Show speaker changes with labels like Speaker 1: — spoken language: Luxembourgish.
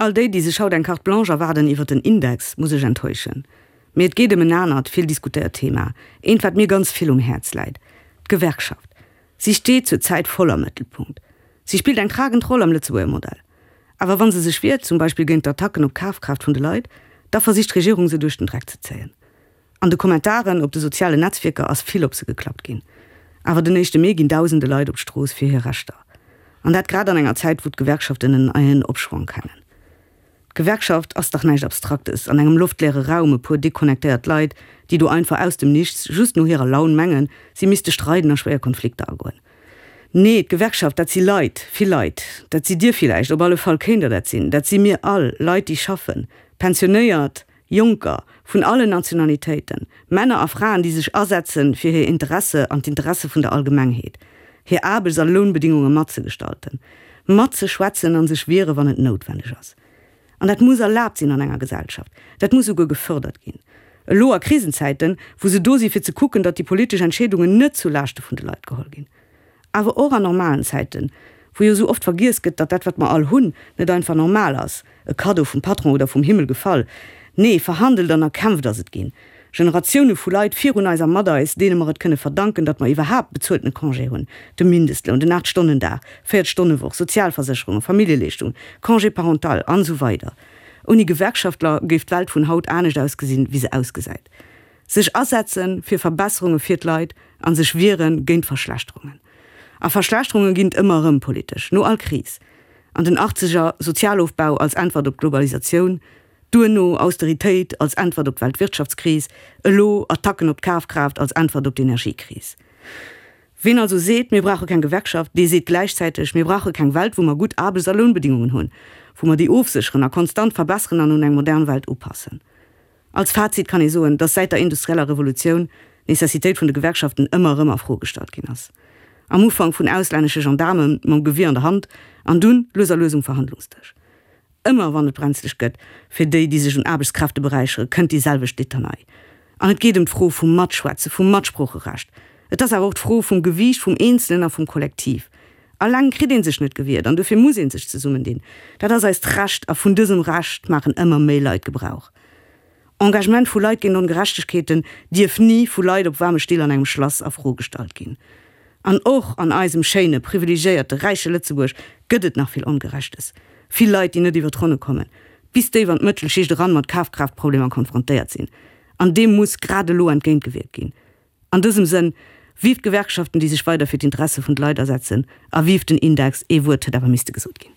Speaker 1: All déi, déi sech haut eng Carte blanche erwaarden iwwer den Index, muss ech enttäuschen. Mee et geet ëm en anert, vill diskutéiert Thema, eent, wat mir ganz vill um Häerz läit, d'Gewerkschaft. Si steet zur Zäit voll am Mëttelpunkt. Si spillt eng tragend Roll am Lëtzebuerger Modell. Awer wa se sech wiert, zum Beispill géint d'Attacken op d'Kafkraaft vun de Leit, da versicht d'Regierung se duerch den Dreck ze zéien. An de Kommentaren op de sozialen Netzwierker ass vill op se geklappt ginn. Awer den éischte Mee ginn dausende Leit op d'Strooss fir hir Rechter. An dat grad an enger Zäit, wou d'Gewerkschaften en eien Opschwong kennen. D'Gewerkschaft ass dach näischt Abstraktes, an engem loftleere Raum e puer deconnectéiert Leit, déi do einfach aus dem Nichts, just no hirer Laun mengen, si misste streiden a schwéier Konflikter agoen. Nee, d'Gewerkschaft, dat si Leit, vill Leit. Dat sidd Dir villäicht, op alle Fall kéint Der dat sinn. Dat si mir all, Leit, déi schaffen, Pensionéiert, Jonker, vun allen Nationalitéiten, Männer a Fraen, déi sech asetze fir hir Interesse an d'Interesse vun der Allgemengheet, hir Aarbechts a Lounbedingunge matzegestalten, matzeschwätzen a sech wiere wann et noutwenneg ass. An dat muss erlaabt sinn an enger Gesellschaft, dat muss souguer gefördert ginn. Elo a Krisenzäiten, wou se do si fir ze kucken, datt déi politesch Entscheedungen net zu Laaschte vun de Leit geholl ginn. Awer och an normalen Zäiten, wou jo esou oft vergiess gëtt, datt dat, wat mer all hunn, net einfach normal ass, e Kaddo vum Patron oder vum Himmel gefall. Nee, verhandelt an erkämpft ass et ginn. Generatioune vu Leit virun eis a mat eis, deene mer et kënne verdanken, datt mer iwwerhaapt bezueltene Congé hunn, de Mindestloun, den 8 Stonnen Dag, 40 Stonne Woch, Sozialversécherungen, Familljeleeschtungen, Congé parental, an esou weider. Ouni Gewerkschaftler géif d'Welt vun haut anescht ausgesinn, wéi se ausgesäit. Sech asetze fir Verbesserunge fir d'Leit a sech wiere géint Verschlechterungen. A Verschlechterunge ginn et ëmmer erëm politesch, no all Kris. An den Achtzeger Sozialofbau als Äntwert op d'Globalisatioun, duerno Austeritéit als Äntwert op d'Weltwirtschaftskris, elo Attacken op d'Kafkraaft als Äntwert op d'Energiekris. Ween also seet, mir brauche keng Gewerkschaft, dee seet gläichzäiteg, mir brauche keng Welt, wou mer gutt Aarbechts a Lounbedingungen hunn, wou mer déi ofsécheren a konstant verbesseren an un eng modern Welt upassen. Als Fazit kann ee soen, dass säit der industrieller Revolutioun d'Nécessitéit vun de Gewerkschaften ëmmer erëm a Fro gestallt ginn ass. Am Ufank vun auslännesche Gendaarme mam Gewier an der Hand an dunn lues a lues um Verhandlungsdësch. Ëmmer wann et brenzlech gëtt fir déi, déi sech un Aarbechtskräfte beräichere, kënnt déi selwecht Litanei. An et geet ëm d'Fro vum Matschwätze, vum Matsproocherecht. Et ass awer och d'Fro vum Gewiicht vum Eenzelen a vum Kollektiv. Alleng kritt ee sech net gewiert an dofir muss ee sech zesummendinn. Dat ass eist Recht a vun dësem Recht maachen ëmmer méi Leit Gebrauch. Engagement vu Leit géint Ongerechtegkeeten dierf ni vu Leit op waarme Still an engem Schlass a Fro gestallt ginn. An och an eisem schéine, privilegiéierte, räiche Lëtzebuerg gëtt et nach vill Ongerechtes. Vill Leit, déi net iwwer d'Ronne kommen, bis déif an d'Mëttelschicht eran mat Kafkraaftproblemer konfrontéiert sinn. An deem muss grad elo entgéintgewierkt ginn. An dësem Sënn, Vive d'Gewerkschaften, déi sech weider fir d'Interesse vun de Leit asetzen, a vive den Index! Ee Wuert huet awer misste gesot ginn.